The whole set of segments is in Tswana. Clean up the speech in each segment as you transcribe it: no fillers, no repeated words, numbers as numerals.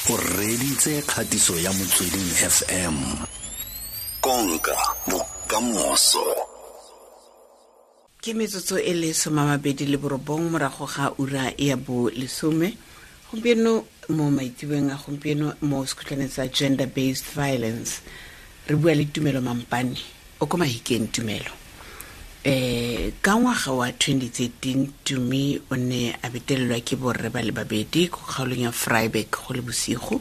O reditse kgatiso ya Motsweding FM. Konka bokamoso. Ke metsotso e le 29 morago ga ura ya bo lesome gompieno mo maitsebeng a gompieno mo sekhutlwaneng sa gender based violence re bua le Tumelo Mampane o ko Mahikeng. Tumelo, ka ngwaga wa 2013 Tumi o ne a betelelwa ke borre ba le babedi ko kgaolong ya Vryburg go le bosigo.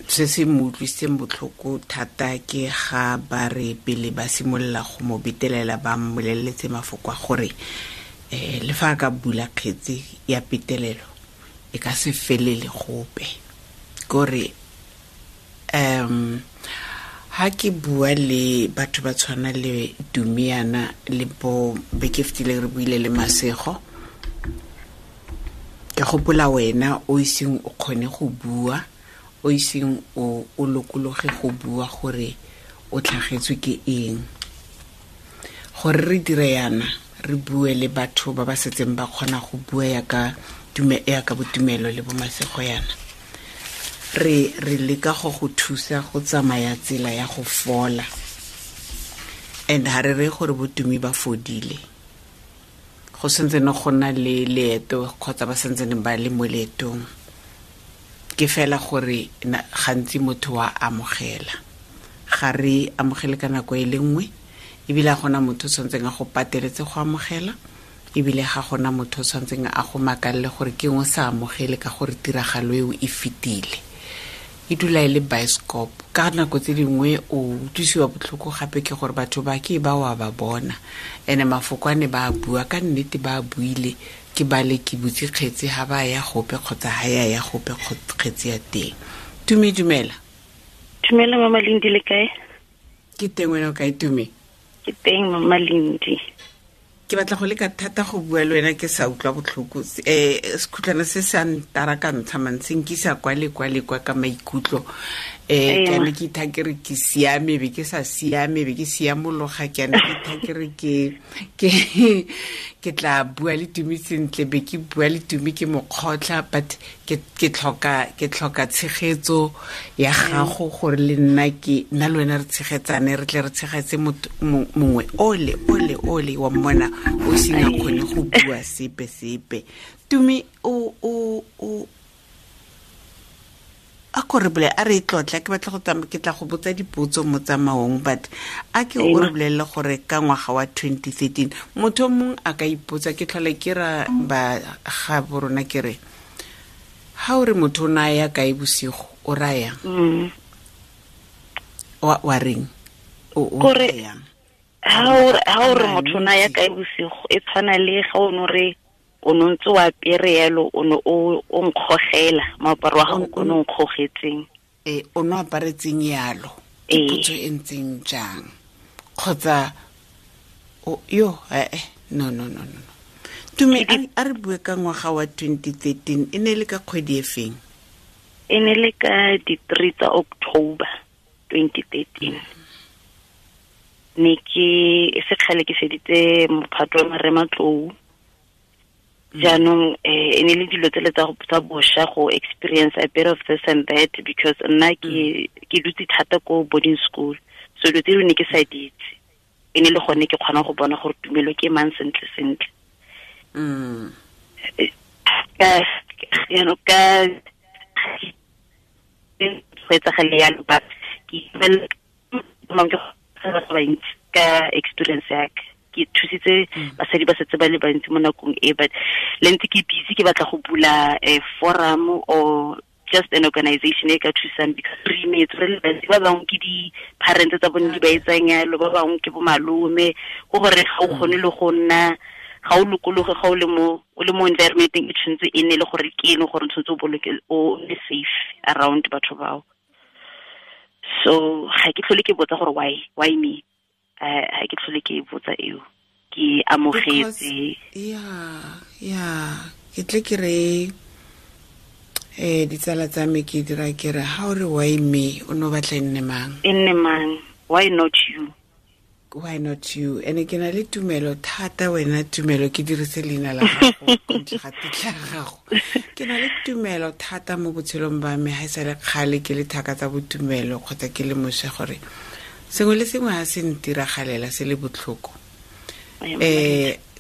Se se mo utlwisitseng botlhoko thata ke ga ba re pele ba simolola go mo betelela ba mmoleletse mafoko a gore le fa a ka bula kgetse ya petelelo e ka se felele gope. Kore ha ke bua le batho ba tshwana le Tumiana le bo beke fetileng re buile le Masego, ke gopola wena o iseng o kgone go bua, o iseng o lokologe go bua gore o tlhagetswe ke eng. Gore re dire yana re bue le batho ba ba setseng ba kgona go bua ya ka botumelo le bo Masego yana, re leka go go thusa go tsamaya tsela ya go fola. And ha re re gore botumi ba fodile, go sentse ne go na le leeto kgotsa ba sentse ne ba le mo leetong. Ke fela gore gantsi motho wa amogela, ga re amogele ka nako e le nngwe, ebile ga gona motho o tshwanetseng a go pateletse go amogela, ebile ga gona motho o tshwanetseng a go makalele gore ke eng o sa amogele ka gore tiragalo eo e fetile. E dula e le bioscope. Ka nako tse dingwe o utlwisiwa botlhoko gape ke gore batho ba ke ba wa ba bona, ene mafoko a ne ba a bua ka nnete ba a buile, ke ba le ke butse kgetse ha ba ya gope kgotsa ha ya ya gope kgetse ya teng. Tumi, dumela. Dumela Mama Lindi, le kae? Ke teng, wena o kae Tumi? Ke teng Mama Lindi. Ke batla go leka thata go bua le wena ke sa utlwa botlhoko. Sekhutlwana se se a ntara ka ntsha mantsi, nkisa kwa le kwa le kwa ka maikutlo. Ke ne ke itha ke re ke siame, be ke sa siame, be ke siamologa, ke ne ke itha ke re ke tla bua le Tumi sentle, be ke bua le Tumi ke mo kgotlha, but ke tlhoka tshegetso ya gago gore le nna ke nna le wena re tshegetsane, re tle re tshegetse mongwe ole ole ole wa mmona o seng a kgone go bua sepe sepe. Tumi, o a ko re bolele, a re tlotla, ke batla go tsamaya, ke tla go botsa dipotso mo tsamaong, but a ke o re bolelele gore ka ngwaga wa 2013 motho mongwe a ka ipotsa, ke tlhole ke ra ba ga borona ke re ha o re motho o na ya kae bosigo o raya wa reng o rayang? Ha o re motho o na ya kae bosigo e tshwana le ga o no re o no ntse wa apere yalo, o no o nkgogela moaparo wa gago o no nkgogetseng. O no aparetseng yalo, ke potso e ntseng jang? Kgotsa yo no no no no. Tumi, a re bue ka ngwaga wa 2013, e ne le ka kgwedi e feng? E ne le ka di 3 tsa October 2013. Ne ke sekgale ke feditse mophato wa marematlou. Jaanong e ne le dilo tsele tsa bosha go experience a bit of this and that, because nna ke dutse thata ko boarding school, so dilo tse ne ke sa di itse. E ne le gone ke kgona go bona gore Tumelo ke mang sentle sentle. Ka ka go etsagale yalo, but ke bantsi ka experience ya ka. Ke thusitse basadi ba setse ba le bantsi mo nakong e, but le ntse ke busy ke batla go bula a forum or just an organization e ka thusang, because re imetse re le bantsi, ba bangwe ke di-parents tsa bone di ba etsang yalo, ba bangwe ke bo malome, go gore ga o kgone le go nna, ga o lokologe ga o le mo environmenteng e tshwanetse e nne le gore ke eng gore tshwanetse o boloke o nne safe around batho bao. So ga ke tlhole ke botsa gore why me, ga ke tlhole ke botsa eo, ke amogetse. Yeah, ke tle ke re ditsala tsa me ke dira ke re ha o re why me, o no batla e nne mang? E nne mang? Why not you? Why not you? Ene ke na le tumelo thata wena tumelo ke dirise leina la gago kontle ga tetla ya gago. Ke na le tumelo thata mo botshelong ba me ga e sa le kgale ke le thaka tsa botumelo kgotsa ke le mosha gore sengwe le sengwe ga se ntiragalela se le botlhoko.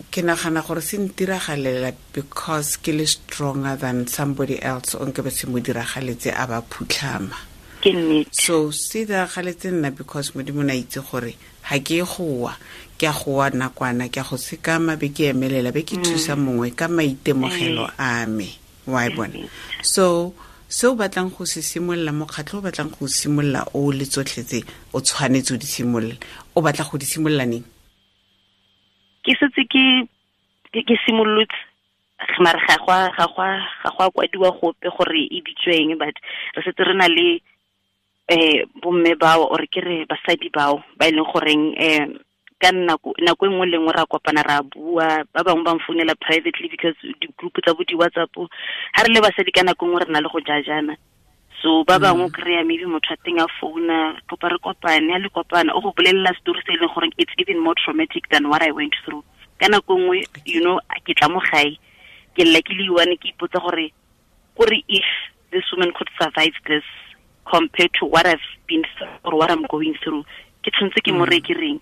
Ke nagana gore se ntiragalela because ke le stronger than somebody else o nke be se mo diragaletse a ba phutlhama. Ke nnete. So se diragaletse nna because Modimo na itse gore ha ke goa, ke a goa nakwana, ke a go sekama be ke emelela, be ke thusa mongwe ka maitemogelo a me. Wa e bona? So se o batlang go se simolola, mokgatlho o batlang go simolola o le tsotlhe tse o tshwanetse o di simolola, o batla go di simolola neng? Ke setse ke simolotse, mare ga go a kwadiwa gope gore e bitsweng, but re setse re na le bomme bao or ke re basadi bao ba e leng goreng ka nako e nngwe le nngwe ra kopana ra bua, ba bangwe ba mfounela privately because di-group tsa bo di-WhatsApp ha re le basadi ka nako nngwe re na le go jajana. So ba bangwe kry-a maybe motho a teng a founa, kopa re kopane, a le kopana o go bolelela story se e leng gore it's even more traumatic than what I went through. Ka nako nngwe, you know, ke tla mo gae, ke lla ke le one, ke ipotsa gore if this woman could survive this compared to what I've been through or what I'm going through, ke tshwanetse ke mo reye ke reng?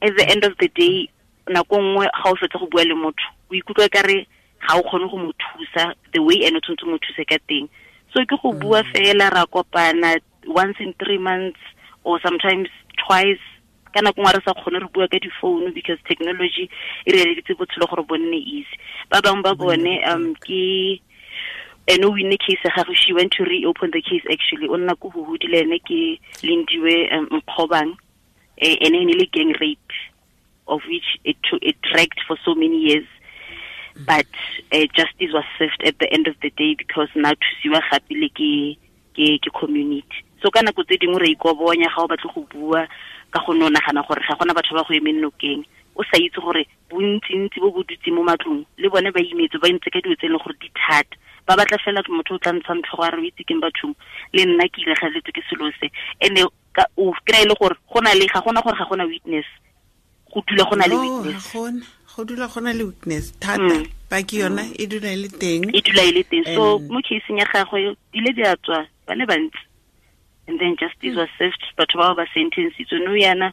At the end of the day, nako nngwe ga o fetsa go bua le motho, o ikutlwa ka re ga o kgone go mo thusa the way ene o tshwanetse mo thuse ka teng. So ke go bua fela, ra kopana once in 3 months or sometimes twice. Ka nako nngwe re sa kgone re bua ka di-phone because technology e re eleditse botshelo gore bo nne easy. Ba bangwe ba bone ke ene o winne case ya gagwe, she went to reopen the case actually. O nna ko Huhudi le ene ke Lindiwe Nkgobang, ene e ne le gang rape, of which it dragged for so many years. But justice was served at the end of the day because now thusiwa gape le ke community. So ka nako tse dingwe re ikobonya ga o batle go bua ka go no nagana gore ga gona batho ba go emeng nokeng, o sa itse gore bontsintsi bo bo dutse mo matlong le bone ba imetse, ba ntse ka dilo tse e leng gore di thata, ba batla fela motho o tla ntshang tlhogo a re o itse keng bathong, le nna ke ilegaletswe ke selo se. And o kry-e le gore go na le ga gona gore ga gona witness, go dula go na le witness. Go dula go na le witness thata, paki yona e dula e le teng. E dula e le teng. So mo caseng ya gagwe dile di a tswa ba le bantsi, and then justice was served, batho bao ba sentenced. No yana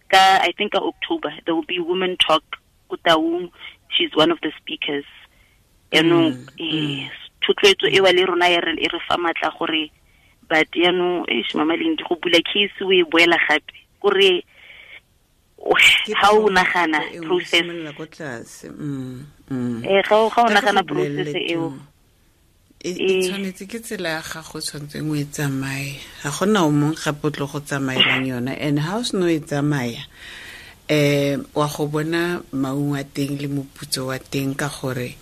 ka I think ka October there will be women talk ko Taung, she's one of the speakers. Yaanong thotloetso e wa le rona ya re e re fa matla gore, but yaanong mama Lindi go bula case o e boela gape kore ga o nagana process ga o nagana process eo e tshwanetse ke tsela ya gago tshwanetseng o e tsamaye, ga gona o mongwe gape o tlo go tsamaelang yona. And ha o seno e tsamaya wa go bona maungo a teng le moputso wa teng, ka gore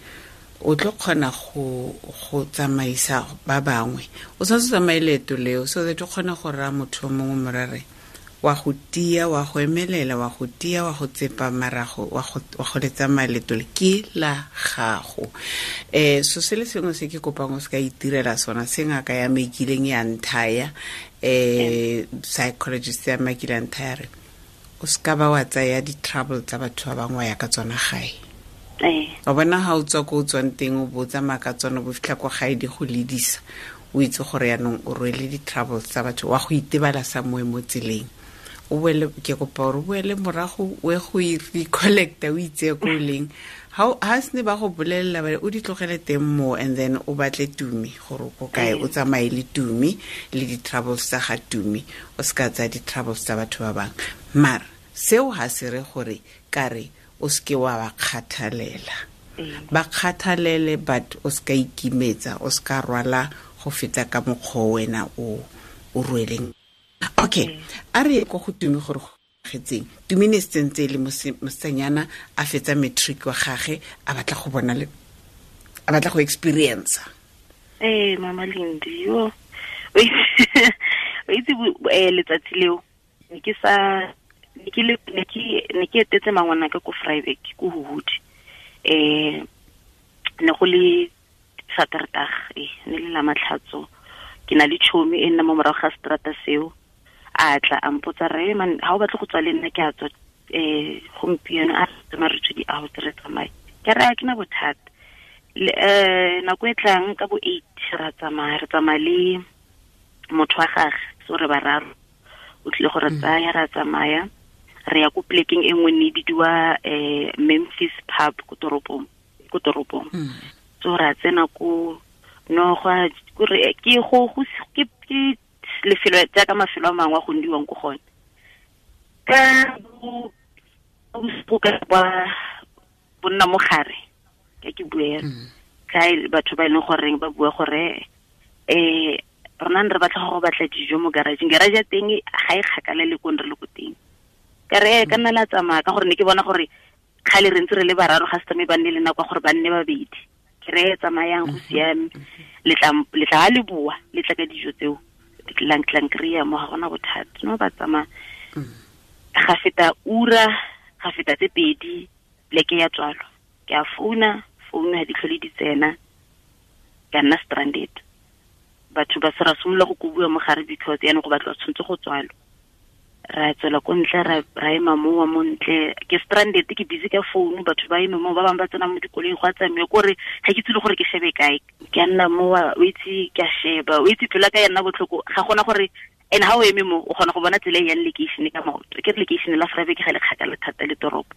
o tlo kgona go tsamaisa ba bangwe. O tshwanetse o tsamaye leeto leo so that o kgone go raya motho o mongwe morare wa go tia, wa go emelela, wa go tia, wa go tsepa marago, wa go le tsamaya leeto le ke la gago. So se le sengwe se ke kopang o se ka itirela sona, se ngaka ya me kileng ya nthaya, psychologist ya me kileng nthaya re o se ka ba wa tsaya di-trouble tsa batho ba bangwe wa ya ka tsona gae. Wa bona ha o tswa ko o tswang teng o bo o tsamaya ka tsona, bo fitlha ko gae di go ledisa, o itse gore yaanong o rwele di-troubles tsa batho, wa go itebala sa moe mo tseleng. O boele, ke kopa gore o boele morago o ye go recollecta, o itseye ko o leng. Ha se ne ba go bolelela ba re o di tlogele teng mo, and then o batle Tumi gore o ko kae, o tsamaye le Tumi le di-troubles tsa ga Tumi, o se ka tsaya di-troubles tsa batho ba bangwe. Mara seo ha se re gore ka re o seke wa ba kgathalela. Ba kgathalele, but o seka ikimetsa, o seka rwala go feta ka mokgwa wena o rweleng. Okay, a re ko go Tumi gore go getseng. Tumi ne sentse le mosetsanyana a fetsa matric wa gagwe, a batla go bona le a batla go experience. Mama Lindi, yo. O itse letsatsi leo ne ke sa ne ke etetse mangwana ka ko Vryburg ko Huhudi. Ne go le Saterdag, ne le la matlhatso. Ke na le chomi e nna mo morago ga strata seo. A tla a mpotsa re man ha o batle go tswa le nna ke a tswa gompieno a tsamaya re tswe di-out re tsamaye. Ke re a ke na bothata. Nako e tlang ka bo 8 ra tsamaya, re tsamaya le motho wa gagwe, so re bararo. O tlile go re tsaya ra tsamaya, re ya ko plekeng e nngwe ne e bidiwa Memphis Pub ko toropong. So ra tsena ko no go re ke go ke lefelo jaaka mafelo a mangwe a go ndiwang ko gone. Ka bo bo nna mo gare ka ke bue ka batho ba e leng goreng ba bua gore rona re batla go batla dijo mo garage. Garage ya teng ga e kgakala le ko re le ko teng. Ka re ka nna la tsamaya ka gore ne ke bona gore kgale re ntse re le bararo ga se tsamaye ba nne le nako gore ba nne babedi. Ke re tsamayang go siame, le tla le bua le tla ka dijo tseo lang kry-a mo ga gona bothata. No ba tsamaya ga feta ura, ga feta tse pedi, pleke ya tswalo. Ke a founa ga di tlhole di tsena, ka nna stranded. Batho ba se ra simolola go kobiwa mo gare because yaanong go batla tshwanetse go tswalo. Ra tswela ko ntle, ra ema mowa mo ntle. Ke stranded, ke busy ka founu, batho ba eme mo, ba bangwe ba tsena mo dikoloing go a tsamaya, kore ga ke tsile gore ke shebe kae. Ke a nna mowa, o itse ke a sheba, o itse pelo ya ka ya nna botlhoko, ga gona gore and ha o eme mo o kgona go bona tsela e yang lekeišene ka maoto. Ke re lekeišene la Vryburg ga le kgakala thata le toropo.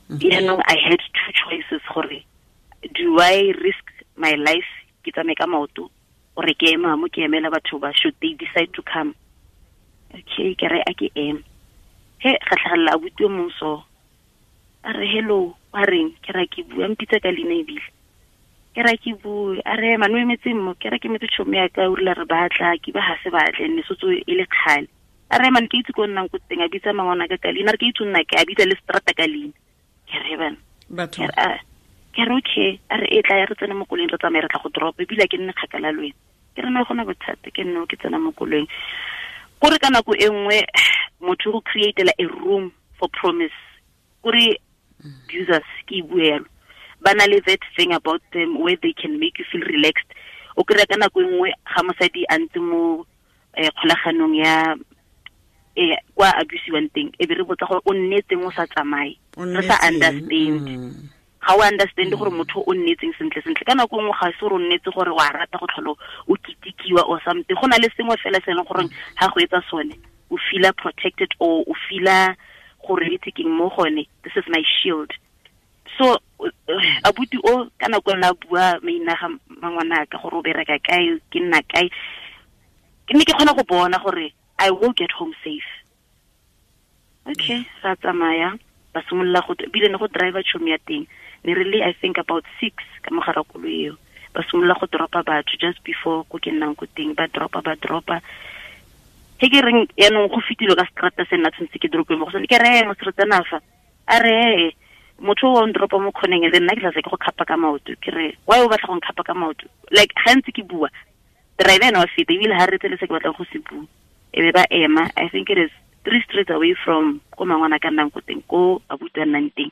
Yaanong I had two choices gore do I risk my life ke tsamaye ka maoto or ke ema mo ke emela batho ba should they decide to come. Okay, ke re a ke eme. He ga tlhagelela abuti o mongwe so a re hello, wa reng? Ke ra ke bua, mpitsa ka leina ebile. Ke ra ke bue, a re man o emetse mo, ke ra ke emetse tšhomi ya ka, o rile re batla, ke ba ga se batle, ne sotso e le kgale. A re man ke itse ko nnang ko teng, a bitsa mangwana ka ka leina, a re ke itse nna ke, a bitsa le strata ka leina. Ke re bana. Ke re okay, a re e tla ya re tsene mo koloing re tsamaye re tla go drop, ebile ke nne kgakala le wena. Ke re no gona bothata, ke nne ke tsena mo koloing. Kore ka nako e nngwe motho go createla a room for promise. Kore abusers ke bue yalo. Ba na le that thing about them where they can make you feel relaxed. O kry-a ka nako e nngwe ga mosadi a ntse mo kgolaganong ya kwa abusiwang teng, e be re botsa gore o nnetseng o sa tsamaye. Re sa understand. Ga o understand gore motho o nnetseng sentle sentle. Ka nako nngwe ga se gore o nnetse gore wa rata go tlhola o kitikiwa or something. Go na le sengwe fela se e leng gore ga go etsa sone o feela protected or o feela gore itse keng mo gone, this is my shield. So abuti o ka nako nna bua maina ga mangwana ka gore o bereka kae, ke nna kae, ke ne ke kgona go bona gore I will get home safe. Okay, ra tsamaya, ba simolola go bile ne go driver tšhomi ya teng. Ne re le I think about 6 ka mogara koloi eo. Ba simolola go dropa batho just before ko ke nnang ko teng, ba dropa. He ke reng yaanong go fetile ka strata se nna tshwanetse ke drope mo go sone. Ke re mo strata fa. A re motho o ndropa mo khoneng le nna ke tla se ke go khapa ka maoto. Ke re why o batla go nkhapa ka maoto? Like ga ntse ke bua, driver ena wa feta ebile ha re tsele se ke batlang go se bua. E be ba ema, I think it is 3 streets away from ko mangwana ka nnang ko teng, ko abuti a nnang teng.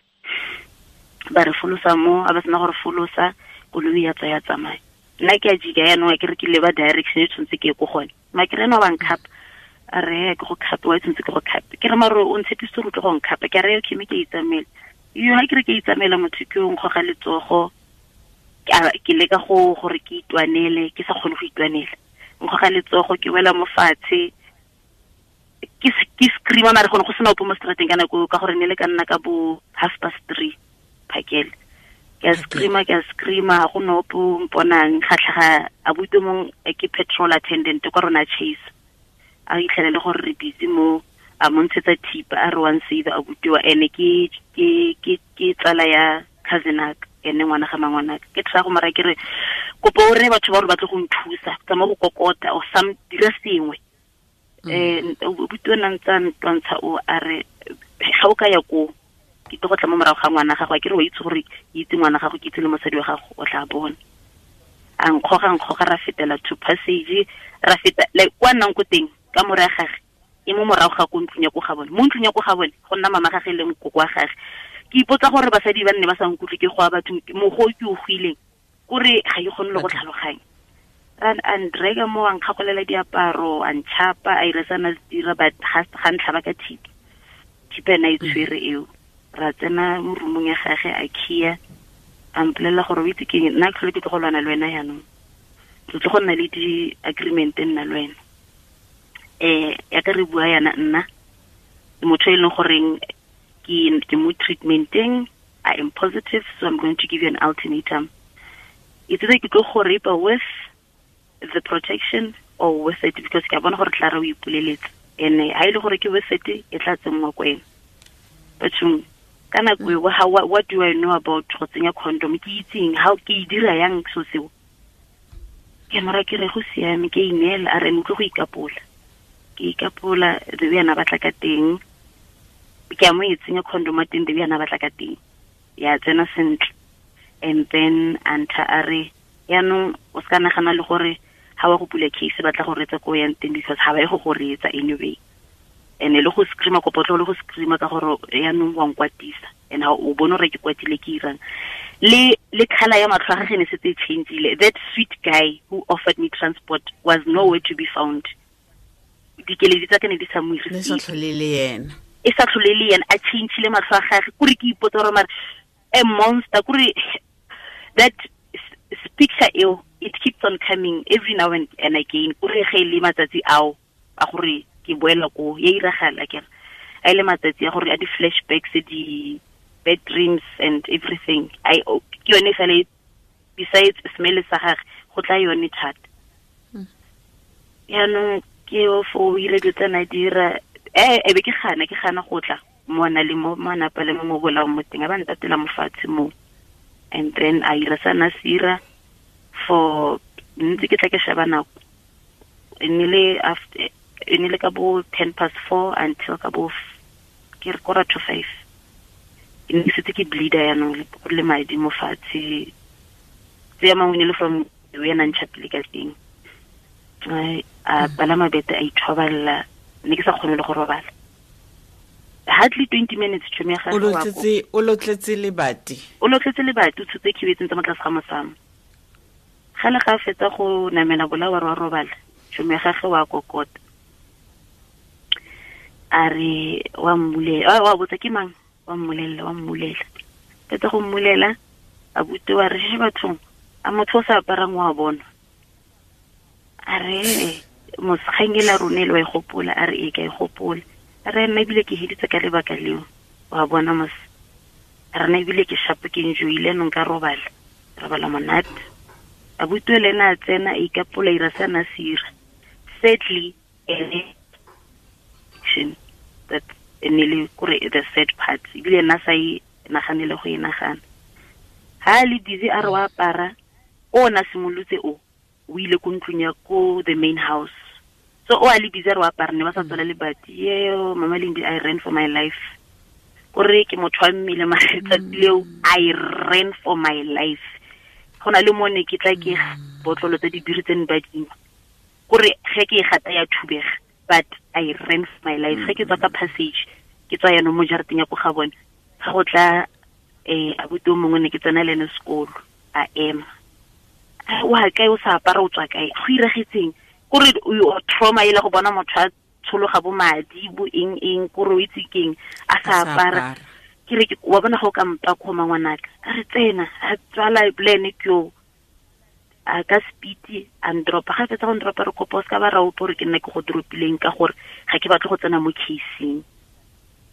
Ba re folosa mo, a ba sena gore folosa, koloi ya tswa ya tsamaya. Nna ke a jika yaanong, ke re ke leba direction e tshwanetse ke ye ko gone. Ma ke re ena wa nkhapa. A re ke go khape, wa tshwanetse ke go khape. Ke re mare o ntshepisitse gore o tle go nkhapa. Ke re okay, mme ke itsamaela. Yo ha ke re ke itsamaela motho ke o nkgoga letsogo. Ke leka go gore ke itwanele, ke sa kgone go itwanela. Nkgoga letsogo, ke wela mo fatshe. Ke screama mare gone go sena ope mo strateng ka nako ka gore ne le ka nna ka bo 3:30 phakele. Ke a screama ga go ne ope o mponang, ga tlhaga abuti mong ke petrol attendant kwa rona Chase. A itlhele le gore re busy mo, a mo ntshetsa thipa a re one save abuti wa ene ke tsala ya cousin aka, ene ngwana ga mangwana. Ke tla go mara ke re kopo o re batho ba gore ba tle go nthusa, tsamaya go kokota or some dira sengwe. Abuti o na ntse a ntwantsha o a re ga o ka ya ko ke tlo go tla mo morago ga ngwana gago, a ke re wa itse gore ke itse ngwana gago, ke itse le mosadi wa gago, o tla bona. A nkgoga ra fetela to passage, ra feta like kwa nnang ko teng ka more ya gagwe e mo morago ga ko ntlong ya ko ga bone. Mo ntlong ya ko ga bone go nna mama gagwe le nkoko wa gagwe. Ke ipotsa gore basadi ba nne ba sa nkutlwe ke go a batho mogo ke o goileng, kore ga ke kgone le go tlhaloganya. A ndraga mo, a nkgagolela diaparo, a ntšhapa, a ira sana dira, but ga ntlhaba ka thipa. Thipa ena e tshwere eo. Ra tsena mo roomong ya gage, a khia, a mpolelela gore o itse keng, nna tlhole ke tlo go lwana le wena jaanong. Re tlo go nna le di-agreement nna le wena. Ya ka re bua yana nna, motho e leng goreng ke mo treatmenteng, I am positive, so I'm going to give you an ultimatum. It's either ke tlo go rape with the protection or with it, because ke a bona gore tla re o ipoleletse. And ha ile gore ke with it, e tla tsenngwa ko ena. Bathong, ka nako eo, what do I know about go tsenya condom? Ke itseng, how ke e dira yang so seo? Ke mora ke re go siame, ke ineela, a re utlwe go ikapola. Ke ikapola, the way ana batla ka teng. Ke a mo e tsenya condom teng, the way ana batla ka teng. Ya tsena sentle. And then anta a re, yaanong o ska nagana le gore ha wa go pula case batla go retsa ko yang teng, because ha ba ye go go retsa anyway. And le go screama kopo tlo le go screama ka gore yaanong wa nkwatisa. And ha o bone gore ke kwatile ke irang. Le colour ya matlho a gagwe ne setse e changeile. That sweet guy who offered me transport was nowhere to be found. Dikeledi tsa ka ne di sa mo irise. Ne sa tlhole le yena. E sa tlhole le yena, a changeile matlho a gagwe. Kore ke ipotsa gore mare a monster, kore that picture eo, it keeps on coming every now and again. Kore ge le matsatsi ao a gore ke boela ko ya iragala ke re a ile matsatsi a gore a di flashbacks, di bad dreams and everything. I ke yone fela, besides smell sa gagwe go tla yone thata. Yaanong ke o fo o ile dilo tsa na dira, e be ke gana go tla mo na le mo manapa le mo bolaong mo teng, a ba ntatela mo fatshe mo. And then a ira sana sira for ntse ke tla ke sheba nako. E nile after, e nile ka bo 4:10 until ka bo ke re 4:45. E ne setse ke bleeder yaanong, go le madi mo fatshe. Tse ya mangwe ne le from we na ntšhapile ka teng. A palama bete a ithoballa, ne ke sa kgone le go robala. Hardly 20 minutes tšhomi ya gagwe wa ko. O lotletse lebati. O lotletse lebati, o tshotse khibe tsentse mo tlase ga mosamo. Ga le ga fetsa go namela bola wa robala, tšhomi ya gagwe wa kokota. A re wa mmulela, wa botsa ke mang? Wa mmulela. Fetsa go mmulela, a bute wa re she bathong, a motho o sa aparang wa bona. A re mosgangela rone le wa e gopola, a re e ka e gopola. A re nna ebile ke heditse ka lebaka leo, wa bona mos. A re nna ebile ke shapo ke enjoyile nong ka robala monate. A butwe le ena a tsena a ikapola ira se ana sira. Sadly, ene that e ne le kore the sad part, ebile nna sa e naganele go e nagana. Ha le busy a re wa apara, o na simolotse o ile ko ntlong ya ko the main house. So o a le busy a re wa apara, ne ba sa tswala lebati. Yeo, Mama Lindi, I ran for my life. Kore ke motho wa mmele mare tsatsi leo, I ran for my life. Go na le mo ne ke tla ke botlolo tsa dibiri tse ne ba dingwe. Kore ge ke e gata ya thubega, but I ran for my life. Ge ke tswa ka passage, ke tswa yaanong mo jarateng ya ko ga bone. Ga go tla abuti o mongwe ne ke tsena le ene sekolo, a ema. Wa kae o sa apara o tswa kae? Go iragetseng? Kore o trauma e le go bona motho a tshologa bo madi bo eng eng, kore o itse keng a sa apara. Ke re wa bona go ka mpa kgoma ngwanaka. A re tsena, a tswala plan ke yo. A ka speed a ndropa. Ga fetsa go ndropa re kopa o ska ba ra utlwa gore ke nna ke go dropileng ka gore ga ke batle go tsena mo caseng.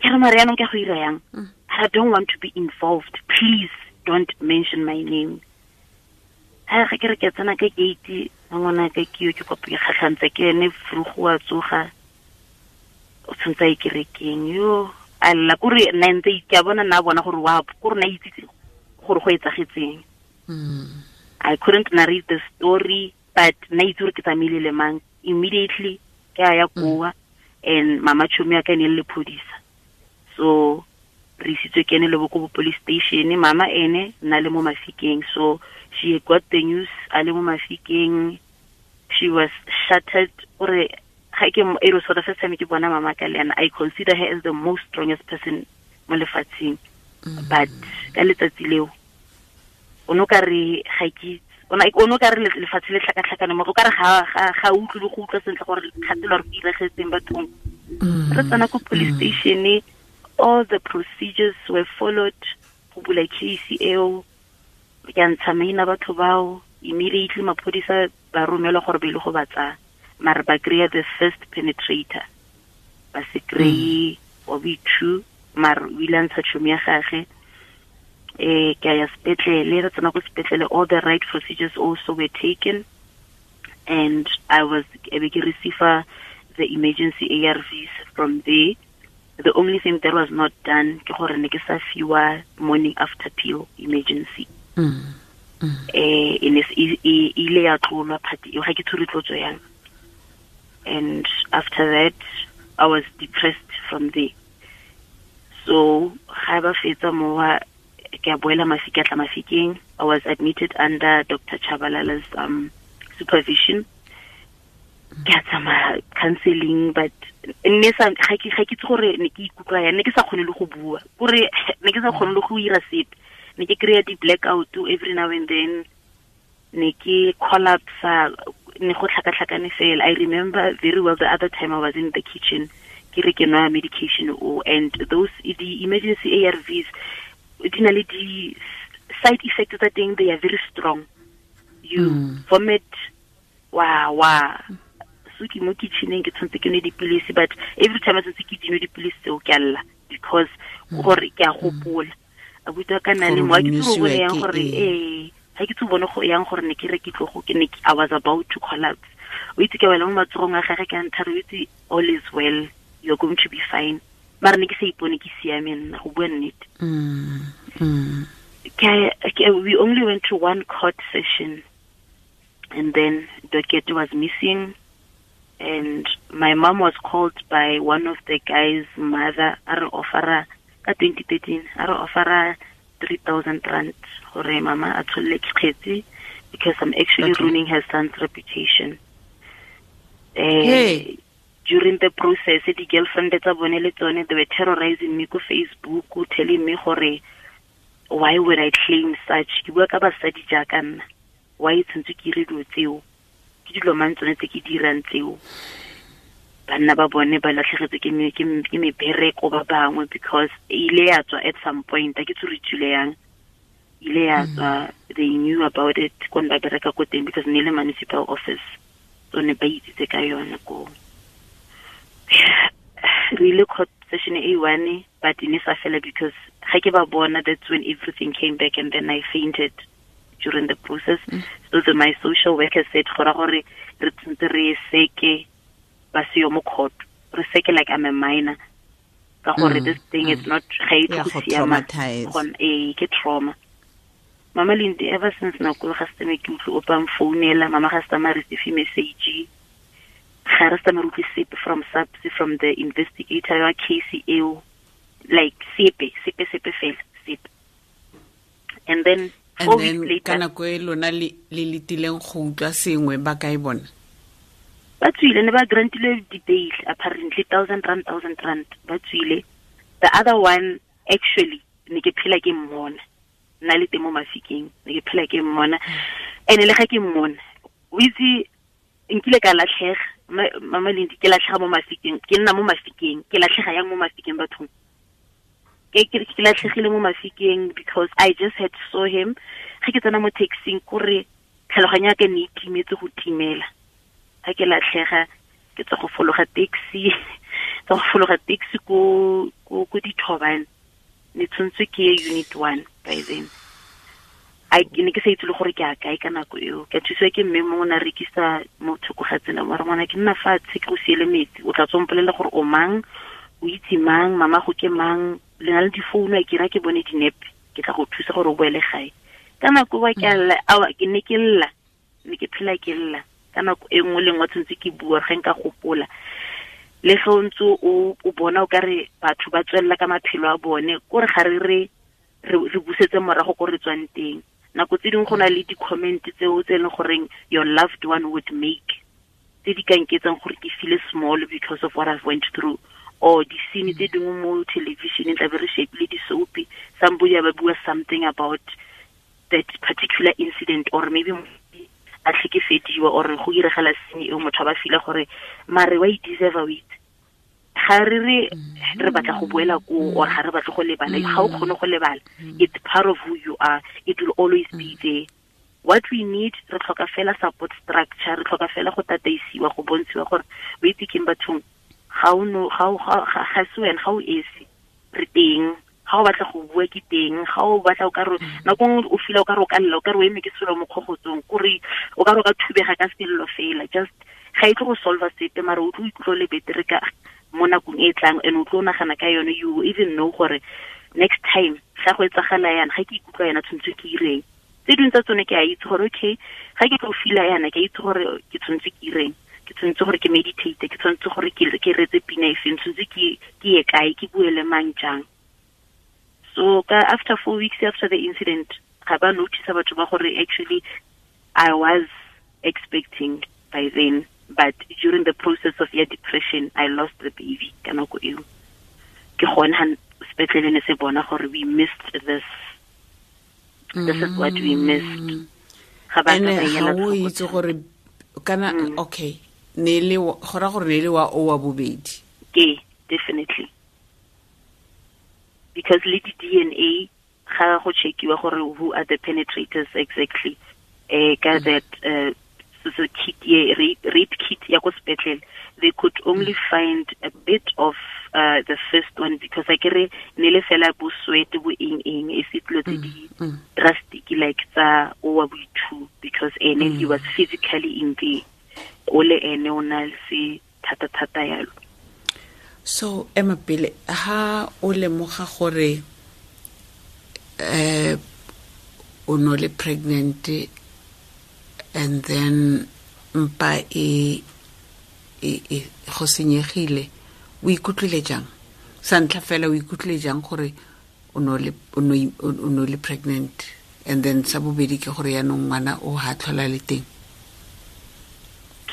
Ke re mare yaanong ke go ira yang? I don't want to be involved. Please don't mention my name. Ha ga ke re ke tsena ka gate, ngwanaka ke yo ke kopa ke kgatlhantse ke ene frugo wa tsoga. O tshwantse a ikerekeng yo. A lla kore nna ntse ke a bona nna bona gore wa kore na itse gore go etsagetseng. I couldn't narrate the story, but na itse gore ke tsamaile le mang. Immediately ke a ya koa, and mama tšhomi ya ka ne le lephodisa. So re isitswe ke ene le bo ko police station, mama ene na le mo Mafikeng. So she got the news a le mo Mafikeng. She was shattered. Ore ga ke it was for the first time ke bona mama ka le ena. I consider her as the most strongest person mo lefatsheng. But ka letsatsi leo o no ka re ga ke Ona o no ka re lefatshe le tlhakatlhakane mo go ka re ga utlwe le go utlwa sentle gore kgatelo re diregetseng bathong. Re tsena ko police station, all the procedures were followed go bula case eo. Ke a ntsha maina batho bao, immediately maphodisa ba romelwa gore ba ile go ba tsaya, mare ba kry-a the first penetrator, ba se kry-e wa boithu, mare o ile a ntsha tšhomi ya gage. Ke a ya sepetlele, re tsena ko sepetlele, all the right procedures also were taken, and I was ebe ke receive the emergency ARVs from there. The only thing that was not done ke gore ne ke sa fiwa morning after pill emergency. E ne e ile ya tlolwa party eo, ga ke tshwere tlotso yang. And after that I was depressed from there. So ga ba fetsa mowa, ke a boela Mafike, a tla Mafikeng. I was admitted under Dr. Chabalala's supervision. Ke a tsamaya counseling, but ne sa ga ke itse gore ne ke ikutlwa yang, ne ke sa kgone le go bua, kore ne ke sa kgone le go ira sepe. Ne ke kry-a di-blackout every now and then, ne ke collapse, ne go tlhakatlhakane fela. I remember very well the other time I was in the kitchen, ke re ke nwa medication o, and those the emergency ARVs di na le di side effects tsa teng, they are very strong. You vomit, wa so ke mo kitcheneng ke tshwanetse ke nwe dipilisi, but every time I tshwanetse ke dinwe dipilisi tseo ke a lla, because gore ke a gopola abuti wa ka nna le mo, ha ke tsebe go yang gore ha ke tsebe bone go yang gore ne ke re ke tlo go ke ne I was about to collapse. O itse ke wela mo matsogong a gagwe, ke a nthare, o itse all is well, you're going to be fine. Mara ne ke sa ipone ke siame nna, go bua nnete. We only went to one court session, and then docket was missing, and my mom was called by one of the guys' mother, a re offera ka 2013, a re offera 3,000 rand gore mama a tsholle kgetsi, because I'm actually ruining her son's reputation. Hey. During the process, the girlfriend tsa bone le tsone, they were terrorizing me ko Facebook, telling me gore why would I claim such? Ke bua ka basadi jaaka nna, why tshwanetse ke dire dilo tseo? Ke dilo mang tsone tse ke dirang tseo? Banna ba bone ba latlhegetswe ke mebereko ba bangwe, because e ile ya tswa at some point, a ke tsore tswile yang, ile ya tswa, they knew about it ko ne ba bereka ko teng, because ne le municipal office, so ne ba itsitse ka yone ko. Re ile court session e one, but e ne sa fela because ga ke ba bona, that's when everything came back, and then I fainted during the process. So my social worker said gore re tshwanetse re seke ba se yo mo court, re seke like I'm a minor, ka gore this thing is not ga e tlo go siama, ke trauma. Mama Lindi, ever since nako ga se ke utlwe o pang founela, mama ga se ma receive message, ga re sa me utlwe sepe from SAPS, from the investigator ya case eo, like sepe fela sepe. And then 4 weeks later, ka nako e lona le letileng go utlwa sengwe, ba kae bona? Ba tswile, ne ba grantile di-bail apparently, 1,000 rand ba tswile. The other one actually ne ke phela ke mmona, nna le teng mo Mafikeng, ne ke phela ke mmona, and le ga ke mmona o itse nkile ka latlhega, Mama Lindi, ke latlhega mo Mafikeng, ke nna mo Mafikeng, ke latlhega yang mo Mafikeng bathong. Ke latlhegile mo Mafikeng because I just had saw him. Ga ke tsena mo taxing, kore tlhaloganyo ya ka ne e timetse go timela. Ga ke latlhega, ke tswa go fologa taxi, tswa go fologa taxi ko Dithobane. Ne tshwanetse ke ye unit 1 by then. I ne ke sa itse le gore ke a kae ka nako eo. Ke thusiwa ke mme mongwe o ne a rekisa mo thoko ga tsela, mara ngwana ke nna fatshe ke go siele metsi, o tla tswa mpolelela gore o mang, o itse mang, mama go ke mang, le na le difounu, a ke ra ke bone dinepe, ke tla go thusa gore o boele gae. Ka nako wa ke lla, awa ke ne ke lla, ne ke phela ke lla. Ka nako e nngwe le nngwe tshwanetse ke bua ge nka gopola. Le ge o ntse o bona o ka re batho ba tswelela ka maphelo a bone, kore ga re re busetse morago ko re tswang teng. Nako tse dingwe go na le di-comment tseo tse e leng goreng your loved one would make, tse di ka nketsang gore ke feel small because of what I've went through, or di-scene tse dingwe mo television tla be re shapile di-soapie, somebody ba bua something about that particular incident, or maybe a tlhekefediwa or go iregela senye eo motho a ba feel gore mare wa e deserve it. Ga re re re batla go boela ko or ga re batle go lebala, ga o kgone go lebala. It's part of who you are, it will always be there. What we need, re tlhoka fela support structure, re tlhoka fela go tataisiwa, go bontshiwa gore o itse keng bathong, ga o no ga o ga se wena, ga o esi, re teng. Ga o batla go bua ke teng, ga o batla o ka re nako nngwe o feel o ka re o ka lla, o ka re o eme ke selo mo kgogotsong, kore o ka re o ka thubega ka sello fela. Just ga e tlo go solve sepe, mara o tlo ikutlwa le betere ka mo nakong e tlang, and o tlo nagana ka yone. You even know gore next time ga go etsagala yana, ga ke ikutlwa yana tshwanetse ke ireng. Tse dingwe tsa tsone ke a itse gore okay, ga ke tlo feel yana, ke a itse gore ke tshwanetse ke ireng, ke tshwanetse gore ke meditate, ke tshwanetse gore ke retse pina e feng, tshwanetse ke ye kae, ke bue le mang jang. So after 4 weeks after the incident, ga ba notice batho ba gore actually I was expecting by then, but during the process of your depression, I lost the baby. Ka nako eo ke gone ha sepetlele ne se bona gore we missed this. This is what we missed. Ga ba ka ba o itse gore kana okay, ne le gora gore ne le wa o wa bobedi. Ke definitely. Because le di DNA ga go checkiwa gore who are the penetrators exactly, ka that so kit ye rape kit ya ko sepetlele, they could only find a bit of the first one, because I kere ne le fela bo sweat bo eng eng e se dilo tse di drastic like tsa o wa bo two, because ene he was physically in there, o le ene o na se thata thata yalo. So ema pele ha o lemoga gore o no le pregnant, and then mpa e go senyegile, o ikutlwile jang? Sa ntlha fela o ikutlwile jang gore o no le pregnant, and then sa bobedi ke gore yaanong ngwana o ha tlhola le teng?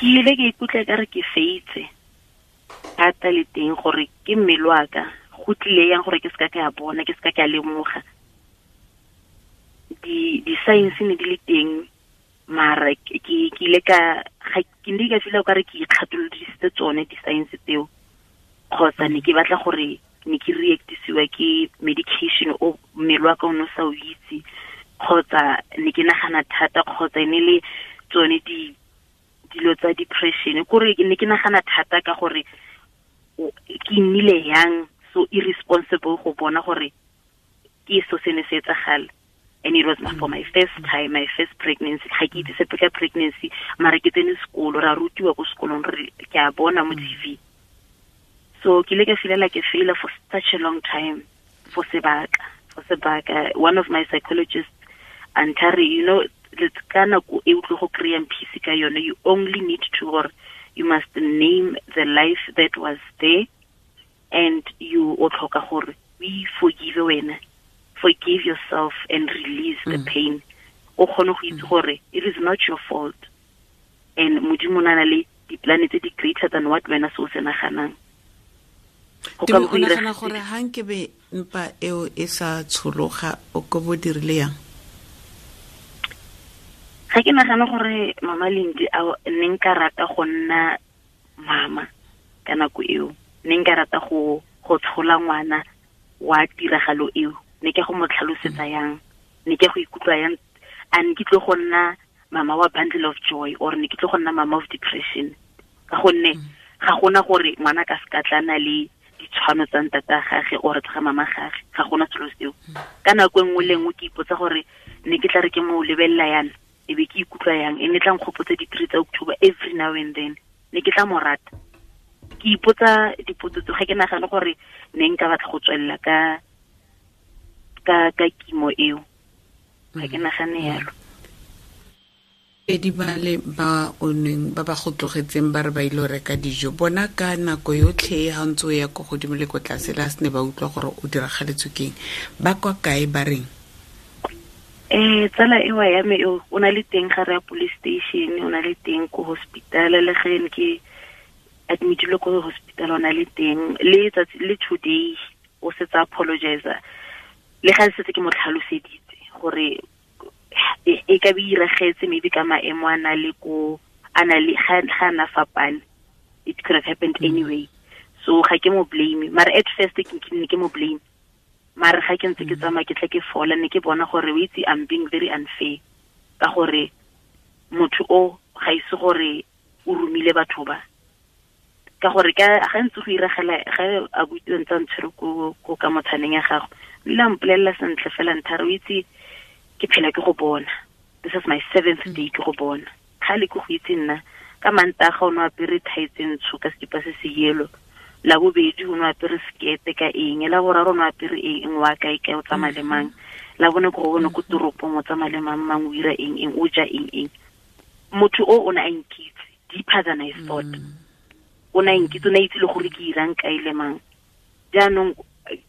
Ke ile ke ikutlwa ka re ke feitse thata le teng gore ke mmele wa ka, go tlile yang gore ke seka ke a bona, ke seka ke a lemoga. Di-science ne di le teng, mara ke ile ka ke ne ka feel o ka re ke ikgatolodisitse tsone di-science tseo, kgotsa ne ke batla gore ne ke reactisiwa ke medication o mmele wa ka o ne o sa o itse, kgotsa ne ke nagana thata, kgotsa e ne le tsone dilo tsa depression, kore ne ke nagana thata ka gore ke nnile yang so irresponsible go bona gore ke so se ne se etsagala. And it was for my first time, my first pregnancy. Ga ke itse sepe ka pregnancy, mara ke tsene sekolo, ra rutiwa ko sekolong, re ke a bona mo TV. So ke ile ka feel like a failure for such a long time, for sebaka. One of my psychologists and Terry, you know, ka nako e o tlo go kry-ang peace ka yone, you only need to, or you must name the life that was there, and you o tlhoka gore we forgive wena, forgive yourself and release the pain. O kgone go itse gore it is not your fault, and Modimo o na le di-plan tse di greater than what wena se o se naganang. O nagana gore ha nkebe mpa eo e sa tshologa, o ko bo dirile yang? Ga ke nagana gore Mama Lindi ne nka rata go nna mama ka nako eo, ne nka rata go tshola ngwana wa tiragalo eo, ne ke go mo tlhalosetsa yang, ne ke go ikutlwa yang, a ne ke tlo go nna mama wa bundle of joy, or ne ke tlo go nna mama of depression, ka gonne ga gona gore ngwana ka se ka tlana le ditshwano tsa ntata gage or tsa mama gage, ga gona selo seo. Ka nako e nngwe le nngwe ke ipotsa gore ne ke tla re ke mo lebelela yana, e be ke ikutlwa yang, e ne tla nkgopotsa di-3 tsa October every now and then, ne ke tla mo rata. Ke ipotsa dipotso tse, ga ke nagane gore ne nka batla go tswelela ka kimo eo, ga ke nagane yalo. Pedi ba le ba o neng ba ba go tlogetseng ba re ba ile go reka dijo, bona ka nako yotlhe ha ntse o ya ko godimo le ko tlase, le ha se ne ba utlwa gore o diragaletswe keng, ba kwa kae ba reng? Tsala ewa ya me eo o na le teng ga re ya police station, o na le teng ko hospital, le ge ne ke admitilwe ko hospital o na le teng, le tsatsi le today o setse apologize, le ga setse ke mo tlhaloseditse gore e ka be iragetse maybe ka maemo a na le ko a na le ga na fapane, it could have happened anyway. So ga ke mo blame, mara at first ke ne ke mo blame, mara ga ke ntse ke tsamaya ke tla ke fola, ne ke bona gore o itse I'm being very unfair ka gore motho o ga ise gore o romile batho ba, ka gore ka ga ntse go iragela ga a butse ntse ntshwere ko ka motshaneng ya gago, o ile a mpolelela sentle fela nthare o itse ke phela ke go bona, this is my 7th day ke go bona, ga le ke go itse nna ka Mantaga o ne apere thae tse ntsho ka sekipa se se yellow, la bobedi o ne apere sekete ka eng, la boraro o ne apere eng, wa kae kae o tsamaya le mang, la bone ko go bone ko toropong o tsamaya le mang mang, o ira eng eng, o ja eng eng. Motho o ne a nkitse deeper than I thought. O ne a nkitse, o ne a itse le gore ke irang kae le mang. Jaanong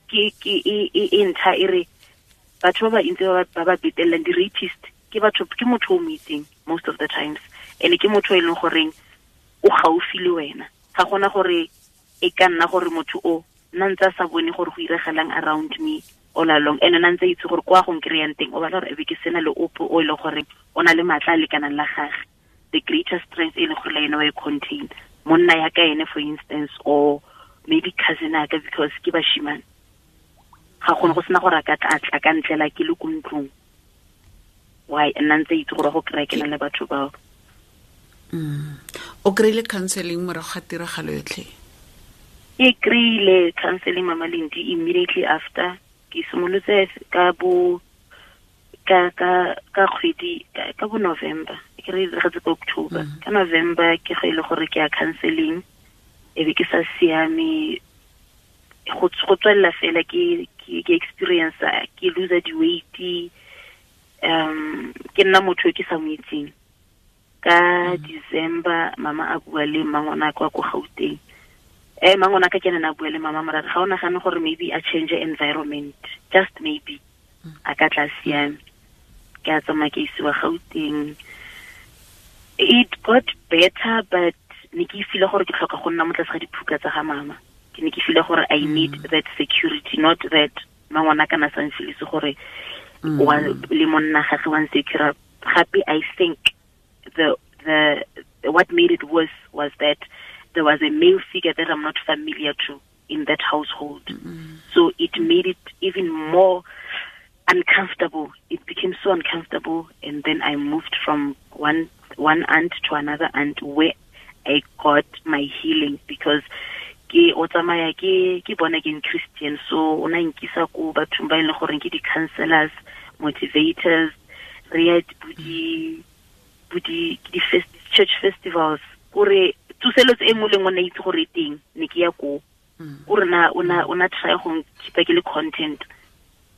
ke e ntlha e re batho ba ba ntse ba ba betellang di-rapist ke batho, ke motho o mo itseng most of the times, and ke motho e leng goreng o gaufi le wena. Ga gona gore e ka nna gore motho o nna ntse a sa bone gore go iregelang around me all along, and nna ntse itse gore kwa go nkry-ang teng o batla gore e be ke sena le ope o e leng gore o na le maatla a lekanang la gage, the greater strength e leng gore le ene wa e contain, monna ya ka ene for instance, or maybe cousin ya ka, because ke bashimane, ga gone go sena gore a ka tla ka ntlela ke le ko ntlong, why nna ntse itse gore go kry-a ke na le batho bao. O kry-ile counseling morago ga tiragalo yotlhe? Ke kry-ile counseling, Mama Lindi, immediately after. Ke simolotse ka bo ka ka ka kgwedi ka bo November, ke re diragetse ka October. Ka November ke go ile gore ke ya counseling, e be ke sa siame go tswelela fela ke experience ke lose the weight, ke nna motho ke sa mo itseng. Ka December mama a bua le mangwana kwa ko Gauteng, mangwana ka ke nna a bua le mama mara ga o nagane gore maybe a change environment, just maybe a ka tla siame. Ke a tsamaya ke isiwa Gauteng, it got better, but ne ke feel gore ke tlhoka go nna mo tlase ga diphuka tsa ga mama. Ke ne ke feel gore I need that security, not that mangwana kana sa nfilise gore wa le monna gagwe wa nsecure. Gape I think the what made it worse was that there was a male figure that I'm not familiar to in that household. So it made it even more uncomfortable. It became so uncomfortable, and then I moved from one aunt to another aunt where I got my healing, because ke o tsamaya ke born again Christian, so o na nkisa ko bathong ba e leng gore ke di-counselors, motivators, re ya di church festivals, kore tsoselotse e nngwe le nngwe na itse gore e teng, ne ke ya ko kore na o na try go nkipa ke le content,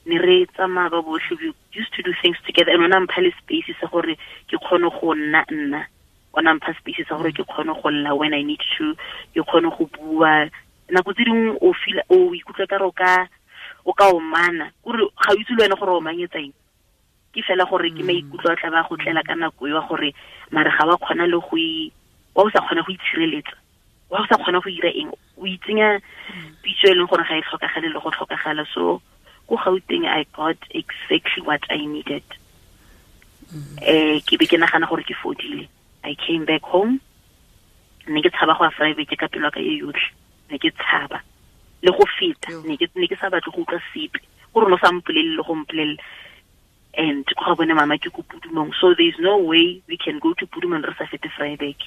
ne re tsamaya ba botlhe, we used to do things together, and ona mpha le space sa gore ke kgone go nna nna, ona mpha space sa gore ke kgone go lla when I need to, ke kgone go bua. Nako tse dingwe o feel o ikutlwa ka re o ka omana, kore ga o itse le wena gore o omanyetsa eng, ke fela gore ke maikutlo a tla ba go tlela ka nako eo gore mare ga wa kgona le go wa o sa kgona go itshireletsa, wa o sa kgona go ira eng, o itsenya pitso e leng gore ga e tlhokagale le go tlhokagala. So ko Gauteng I got exactly what I needed. Ke be ke nagana gore ke fodile. I came back home, ne ke tshaba go ya private ka pelo ka e yotlhe, ne ke tshaba le go feta, ne ke sa batle go utlwa sepe, gore no sa mpolelle le go mpolelle. And go bone mama ke ko Pudumong, so there is no way we can go to Pudumong re sa fete Vryburg.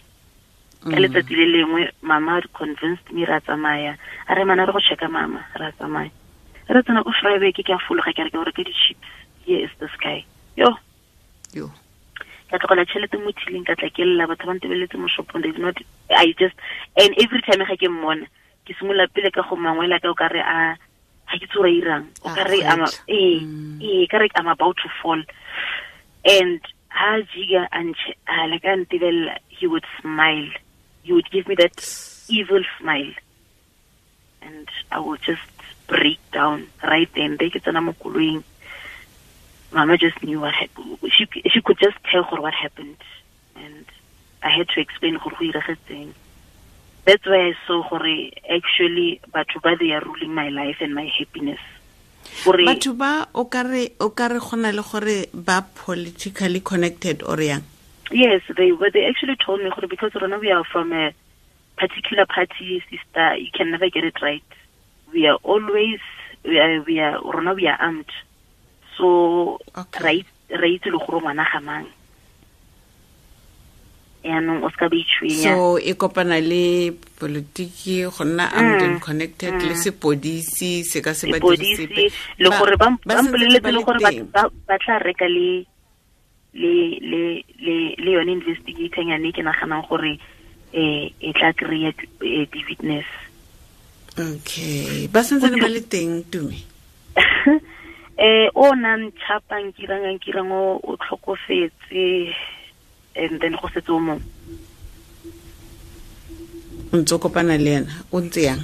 Ka letsatsi le lengwe mama convinced me ra tsamaya, a re mana re go checka mama, ra tsamaya, re tsena ko Vryburg, ke a fologa ke re ke go reka di-chips, here is this guy. Yo ka tlogela tšhelete mo thileng, ka tla ke lla, batho ba ntebeletse mo shopong, they did not, I just, and every time ga ke mmona ke simolola pele ka go mangwela ka o ka re a ga ke tsore irang, o ka re ka re I'm about to fall. And ha jiga a like a ntebella, he would smile, he would give me that evil smile, and I would just break down right then. Be ke tsena mo koloing, Mama just knew what happened. She could just tell her what happened, and I had to explain gore go iragetseng. That's why I saw gore actually batho ba they are ruling my life and my happiness. Gore batho ba o ka re gona le gore ba politically connected or yang? Yes, they actually told me gore because rona we are from a particular party, sister, you can never get it right. We are always we are armed. So right le gore ngwana ga mang. Yaanong o ska ba itshwenya. So e kopana le politiki go nna armed and connected le sepodisi se ka se ba dirise le gore ba mpoleletse le gore ba tla reka le le le le le yone investigator nyane ke naganang gore e tla kry-a di-witness. Okay, ba santsane ba le teng Tumi? O nang tšhapang kirang o tlhokofetse, and then go setse o mongwe. O ntse o kopana le ena, o ntse yang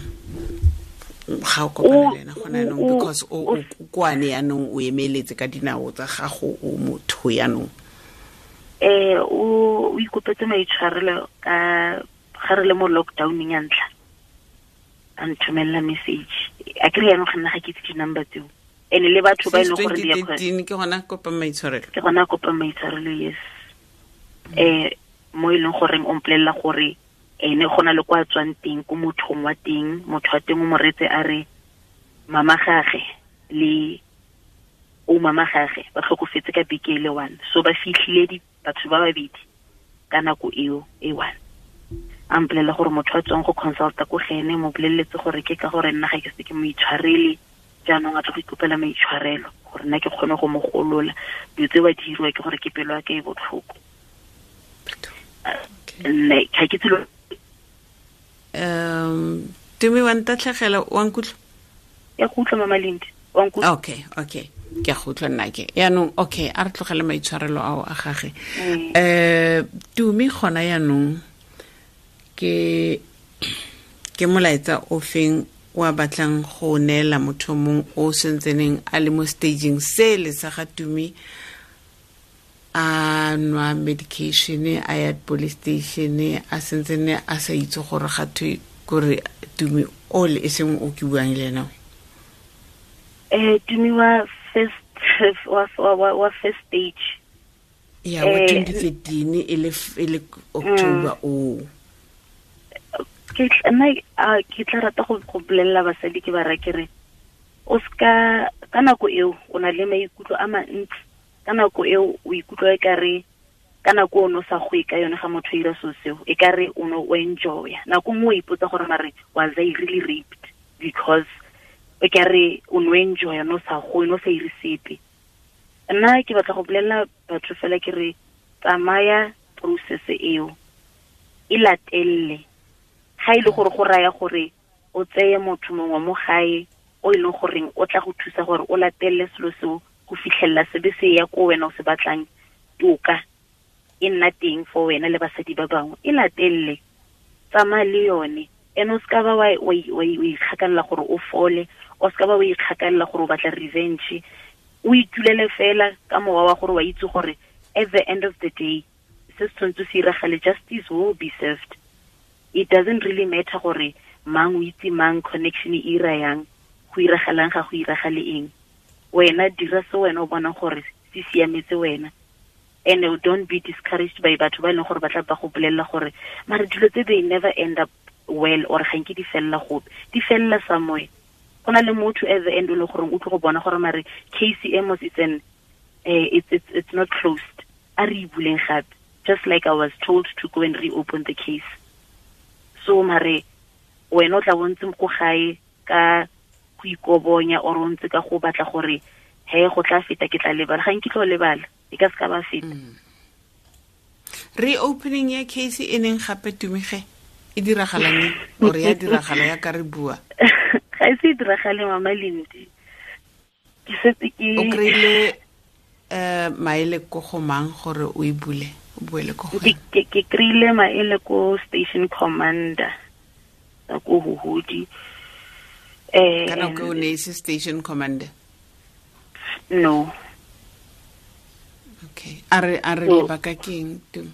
ga o kopana le ena gona yanong? Because o kwane yanong, o emeletse ka dinao tsa gago, o motho yanong. O ikopetse maitshwarelo ka ga re le mo lockdowneng ya ntlha, a nthomelela message. A kry yanong ga nna ga ke itse di-number tseo, and le batho ba e leng gore ke gona kopa maitshwarelo. Ke gona kopa maitshwarelo, yes. Mo e leng goreng o mpolelela gore ene go na le kwa tswang teng ko mothong wa teng, motho wa teng o mo retse a re mama gage le o mama gage ba tlhokofetse ka beke e le one, so ba fitlhile batho ba babedi ka nako eo e one. A mpolelela gore motho wa tswang go consulta ko gene mo boleletse gore ke ka gore nna ga ke se ke mo itshwarele, jaanong a tlo go ikopela maitshwarelo gore nna ke kgone go mo golola. Dilo tse ba di diriwa ke gore ke pelo ya ka e botlhoko. Nne ga ke tselo. Tumi wa ntatlhegela, wa nkutlwa? Ya go utlwa Mama Lindi, wa nkutlwa? Okay, ke a go utlwa nna ke. Yaanong okay, a re tlogele maitshwarelo ao a gage. Tumi gona yaanong ke molaetsa o feng wa batlang go neela motho mongwe o sentseneng a le mo staging se le sa ga Tumi, a nwa medication, a ya police station, a sentsene a sa itse gore ga thwe kore Tumi o le e seng o ke buang le ena? Tumi wa first wa first stage ya wa 2013 e le October o. Ke ke tla rata go bolelela basadi ke ba ra ke re o ska ka nako eo o na le maikutlo a mantsi, ka nako eo o ikutlwa e kare ka nako o no sa go ka yone ga motho ira so seo e kare o no o enjoya. Nako nngwe o ipotsa gore mare was I really raped, because e kare o no enjoya no sa go no sa ire sepe. Nna ke batla go bolelela batho fela ke re tsamaya process eo e latelle. Ga ile gore go raya gore o tseye motho mongwe mo gae o e leng goreng o tla go thusa gore o latelle selo seo go fitlhelela sebe se ya ko wena o se batlang, toka e nna teng for wena le basadi ba bangwe, e latelle, tsamaya le yone. And o ska ba wa ikgakalela gore o fole, o ska ba wa ikgakalela gore o batla revenge, o itulele fela ka mowa wa gore wa itse gore at the end of the day se se tshwanetse se iragale, justice will be served. It doesn't really matter gore mang o itse mang, connection e ira yang, go iragalang ga go iragale eng. Wena dira se wena o bonang gore se siametse wena. And don't be discouraged by batho ba e leng gore ba tla ba go bolelela gore mare dilo tse they never end up well, or ga nke di felela gope, di felela somewhere. Go na le motho at the end o leng gore o tlo go bona gore mare case e mos it's an it's not closed, a re e buleng gape, just like I was told to go and reopen the case. So mare wena o tla bontse ko gae ka go ikobonya or o ntse ka go batla gore he go tla feta ke tla lebala, ga nke tlo lebala, e ka se ka ba feta. Reopening ya case e neng gape Tumige e diragalang or ya diragala ya ka re bua? Ga e se e diragale Mama Lindi. Ke setse ke o kry-ile maele ko go mang gore o e bule, o boele ko go? Ke kry-ile maele ko station commander ko Huhudi. Ka nako o ne e se station commander? No. Okay. A re lebaka ke eng Tumi?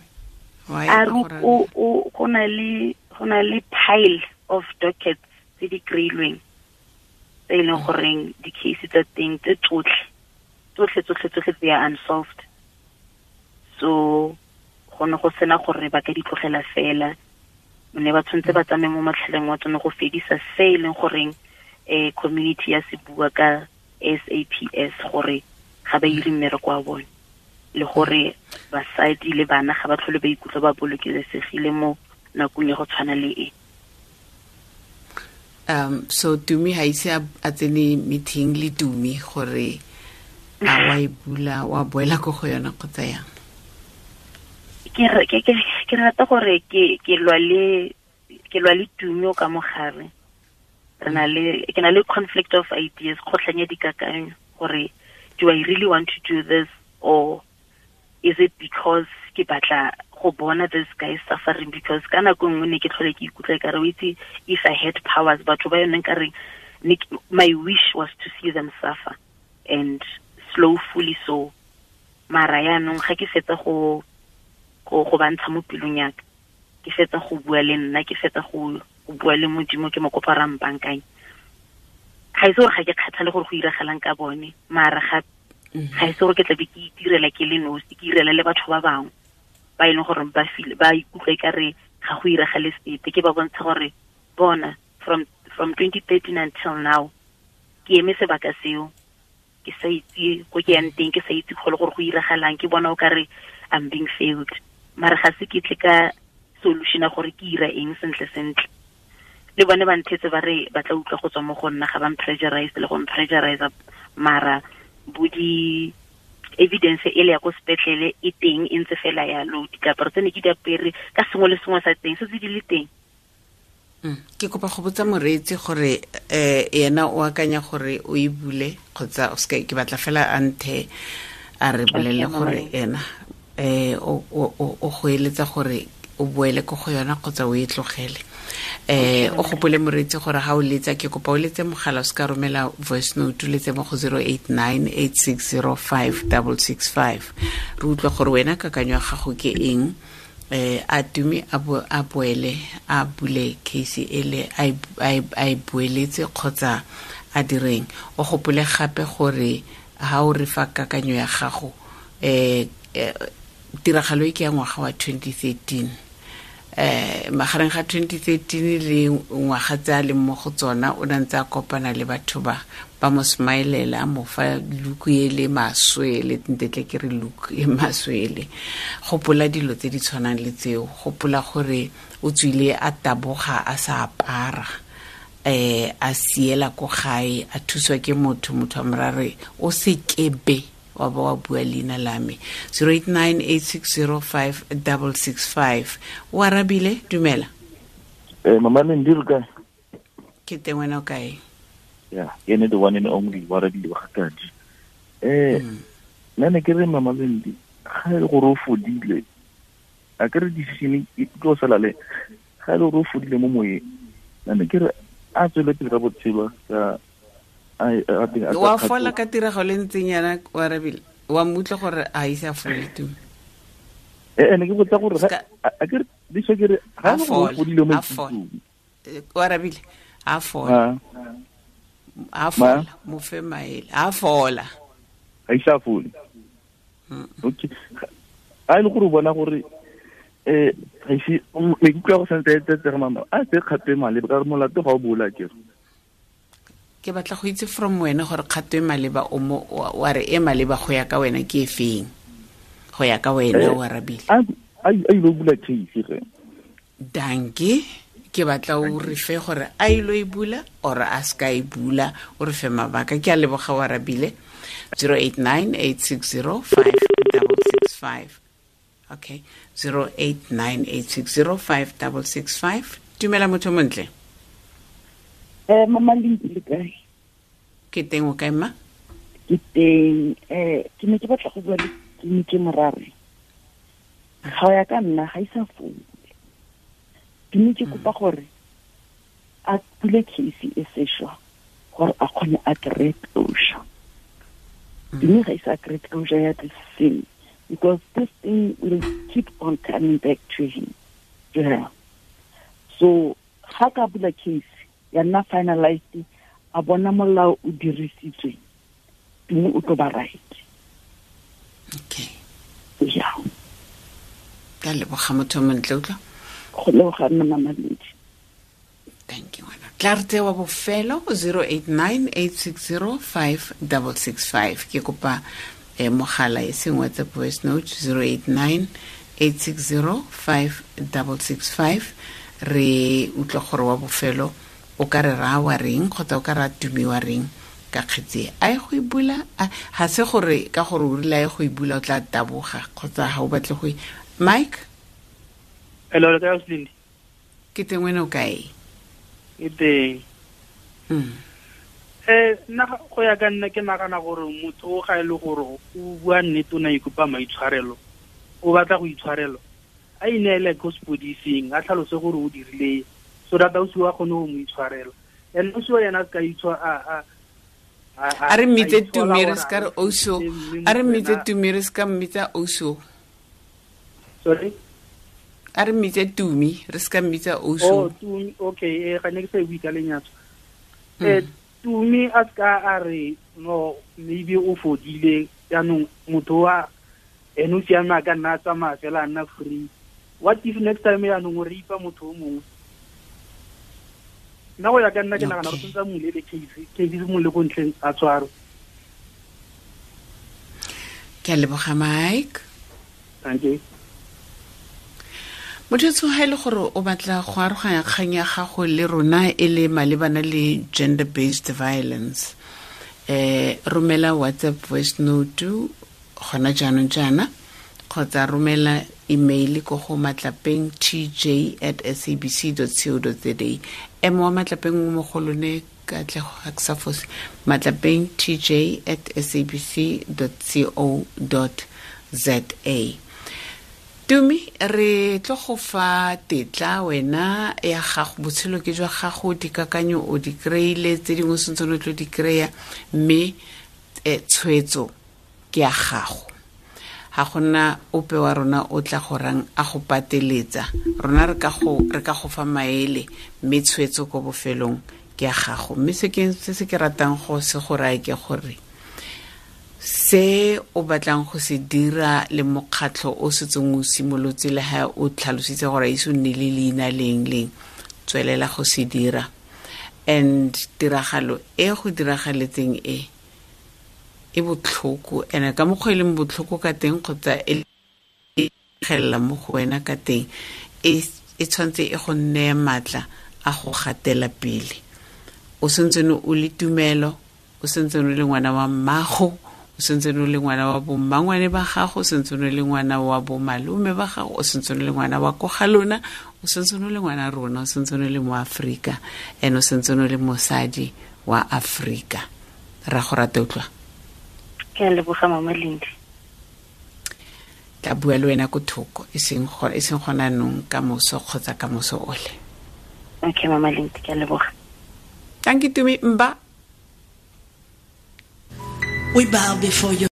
Why? A re o go na le pile of dockets tse di kry-ilweng. Tse e leng goreng di-case tsa teng tse tsotlhe tsotlhe tsotlhe tsotlhe they are unsolved. So go ne go sena gore ba ka di tlogela fela, ne ba tshwanetse ba tsamaye mo matlhaleng wa tsone go fedisa se e leng goreng community ya se bua ka SAPS gore ga ba ire mmereko wa bone, le gore basadi le bana ga ba tlhole ba ikutlwa ba bolokesegile mo nakong ya go tshwana le e. So Tumi ha ise a tsene meeting le Tumi gore a wa e bula wa boela ko go yona kgotsa yang? Ke rata gore ke lwa le Tumi o ka mogare. Ke na le conflict of ideas, kgotlhang ya dikakanyo gore do I really want to do this or is it because ke batla go bona this guy suffering? Because ka nako nngwe ne ke tlhole ke ikutlwa ekare o itse, if I had powers, batho ba yone nka reng, my wish was to see them suffer and slowfully so. Mara yaanong ga ke fetsa go bantsha mo pelong ya ka, ke fetsa go bua le nna, ke fetsa go bua le Modimo, ke mo kopa ra mpankanye. Ga ise gore ga ke kgathale gore go iragalang ka bone, mara ga ise gore ke tla be ke itirela ke le nosi, ke irela le batho ba bangwe ba e leng gore ba ba ikutlwa ekare ga go iragale sepe. Ke ba bontsha gore bona from 2013 until now ke eme sebaka seo, ke sa itse ko ke yang teng, ke sa itse go le gore go iragalang, ke bona o kare I'm being failed. Mara ga se ke tle ka solution ya gore ke ira eng sentle sentle. Le bone ba nthetse ba re ba tla utlwa go tswa mo go nna, ga ba mpressurize le go mpressurize, mara bo di evidence e le ya ko sepetlele e teng e ntse fela yalo, diaparo tse ne ke di apere ka sengwe le sengwe sa teng se tse di le teng. Ke kopa go botsa moreetsi gore yena o akanya gore o e bule kgotsa o seka, ke batla fela a nthe a re bolele gore ena o go eletsa gore o boele ko go yona kgotsa o e tlogele. O gopole moreetsi gore ga o letsa, ke kopa o letse mogala, o se ka romela voice note, o letse mo go 089 860 5665. Re utlwa gore wena kakanyo ya gago ke eng. A Tumi a boele a bule case ele a e boeletse kgotsa a direng. O gopole gape gore ha o re fa kakanyo ya gago, tiragalo e ke ya ngwaga wa 2013, magareng ga 2013 le ngwaga tse a leng mo go tsona, o ne ntse a kopana le batho ba mo smilela, mo fa look e le maswe le ntetle ke re look e maswe le. Gopola dilo tse di tshwanang le tseo, gopola gore o tswile a taboga a sa apara, a siela ko gae, a thuswa ke motho a morare o se kebe wa ba wa bua leina la me. 089 860 5665. O arabile, dumela. Mama Lendi re kae? Ke teng, wena o kae? Ya, ke ene the one and only wa arabile wa Gatadi. Nna ne ke re Mama Lendi, ga e le gore o fodile, a ke re decision e tlo sala le, ga e le gore o fodile mo moyeng, nna ne ke re a tswele pele ka botshelo ka wa fola ka tiragalo e ntseng yana, o arabile, wa mmutlwa gore a ise a fole Tumi. Ne ke botsa gore a ke re diso ke re ga e le gore o fodile mo ikutlong. O arabile, a fola. A fola, mo fe maele, a fola. Ga ise a fole. Okay. A e le gore o bona gore ga ise maikutlo a go santse a etsetsega mama, a tse kgato e maleba ka gore molato ga o bola ke re. Ke batla go itse from wena gore kgato e maleba o mo wa re e maleba go ya ka wena ke e feng? Go ya ka wena o arabile. A ile bula case ge. Danke. Ke batla o re fe gore a ile e bula or a ska e bula, o re fe mabaka. Ke a leboga o arabile. 089 860 5665. Okay, 089 860 5665. Dumela motho montle. Mama Lendi le kae? Ke teng, o kae mma? Ke teng. Ke ne ke batla go bua le Tumi ke morare. Ga ya ka nna ga isa fole. Tumi ke kopa gore a bule case e sešwa gore a kgone a kry closure. Tumi ga isa kry closure ya this thing, because this thing will keep on coming back to him, to her. So ga ka bula case ya nna finalized, A bona molao o dirisitswe, Tumi o tlo ba right. Okay. Yeah. Ka leboga motho o montle, utlwa. Go leboga nna, Mama Lindi. Thank you, ngwana. Tla re tsewa bofelo 089 860 5665. Ke kopa mogala e seng WhatsApp voice note, 089 860 5665. Re utlwa gore wa bofelo o ka re raya wa reng, kgotsa o ka raya Tumi wa reng ka kgetse a ye go e bula. Ga se gore ka gore o rile a ye go e bula o tla taboga kgotsa ga o batle go e. Mike? Hello, le kae, Ausi? Ke teng, wena o kae? Ke teng. Nna go ya ka nna, ke nagana gore motho o ga e le gore o bua nnete, o ne a ikopa maitshwarelo, o batla go itshwarelo, a ineele ko sepodising, a tlhalose gore o dirile, so that ausi wa kgone go mo itshwarela. And ausi wa yena a se ka itshwa a A re mmitse Tumi, re se ka re oso. A re mmitse Tumi, re se ka mmitsa oso. Sorry? A re mmitse Tumi, re se ka mmitsa oso. Oh, Tumi, okay, ga ne ke sa e bue ka lenyatso. Tumi a se ka a re no, maybe o fodile jaanong, motho wa ene o siame, a ka nna a tsamaya fela, a nna free. What if next time jaanong o rape motho o mongwe? Nna go ya ka nna, ke nagana gore tshwanetse a mmulele case, case e simolole ko ntlheng, a tshwarwe. Ke a leboga, Mike. Thank you. Motho ga e le gore o batla go aroganya kgang ya gago le rona e le malebana le gender based violence, romela WhatsApp voice note gona jaanong jaana, kgotsa romela email ko go matlapeng tj@sabc.co.za. M wa Matlapeng o mo go lone, Katlego, ga ke sa fose. matlapeng tj@sabc.co.za. Tumi, re tlo go fa tetla wena ya gago, botshelo ke jwa gago, dikakanyo o di kry-ile, tse dingwe sentse o tlo di kry-a, mme tshwetso ke ya gago. Ga gona ope wa rona o tla gorang a go pateletsa. Rona re ka go fa maele, mme tshwetso ko bofelong ke ya gago. Mme se ke ratang go se go raya ke gore se o batlang go se dira le mokgatlho o setseng o simolotse, le ha o tlhalositse gore a ise o nne le leina leng leng, tswelela go se dira. And tiragalo e go diragaletseng e e botlhoko, and ka mokgwa e leng botlhoko ka teng kgotsa e gelela mo go wena ka teng, e tshwanetse e go neye maatla a go gatela pele. O sentsene o le tumelo, o sentsene o le ngwana wa mmago, o sentsene o le ngwana wa bommangwane ba gago, o sentsene o le ngwana wa bomalome ba gago, o sentsene o le ngwana wa ko ga lona, o sentsene o le ngwana rona, o sentsene o le mo Aforika, and o sentsene o le mosadi wa Aforika. Ra go rata, utlwa. Ke a leboga, Mama Lindi. Tla bua le wena ko thoko, e seng gona nong, ka moso kgotsa ka moso ole. Okay, Mama Lindi, ke a leboga. Thank you, Tumi. Mba. We bow before your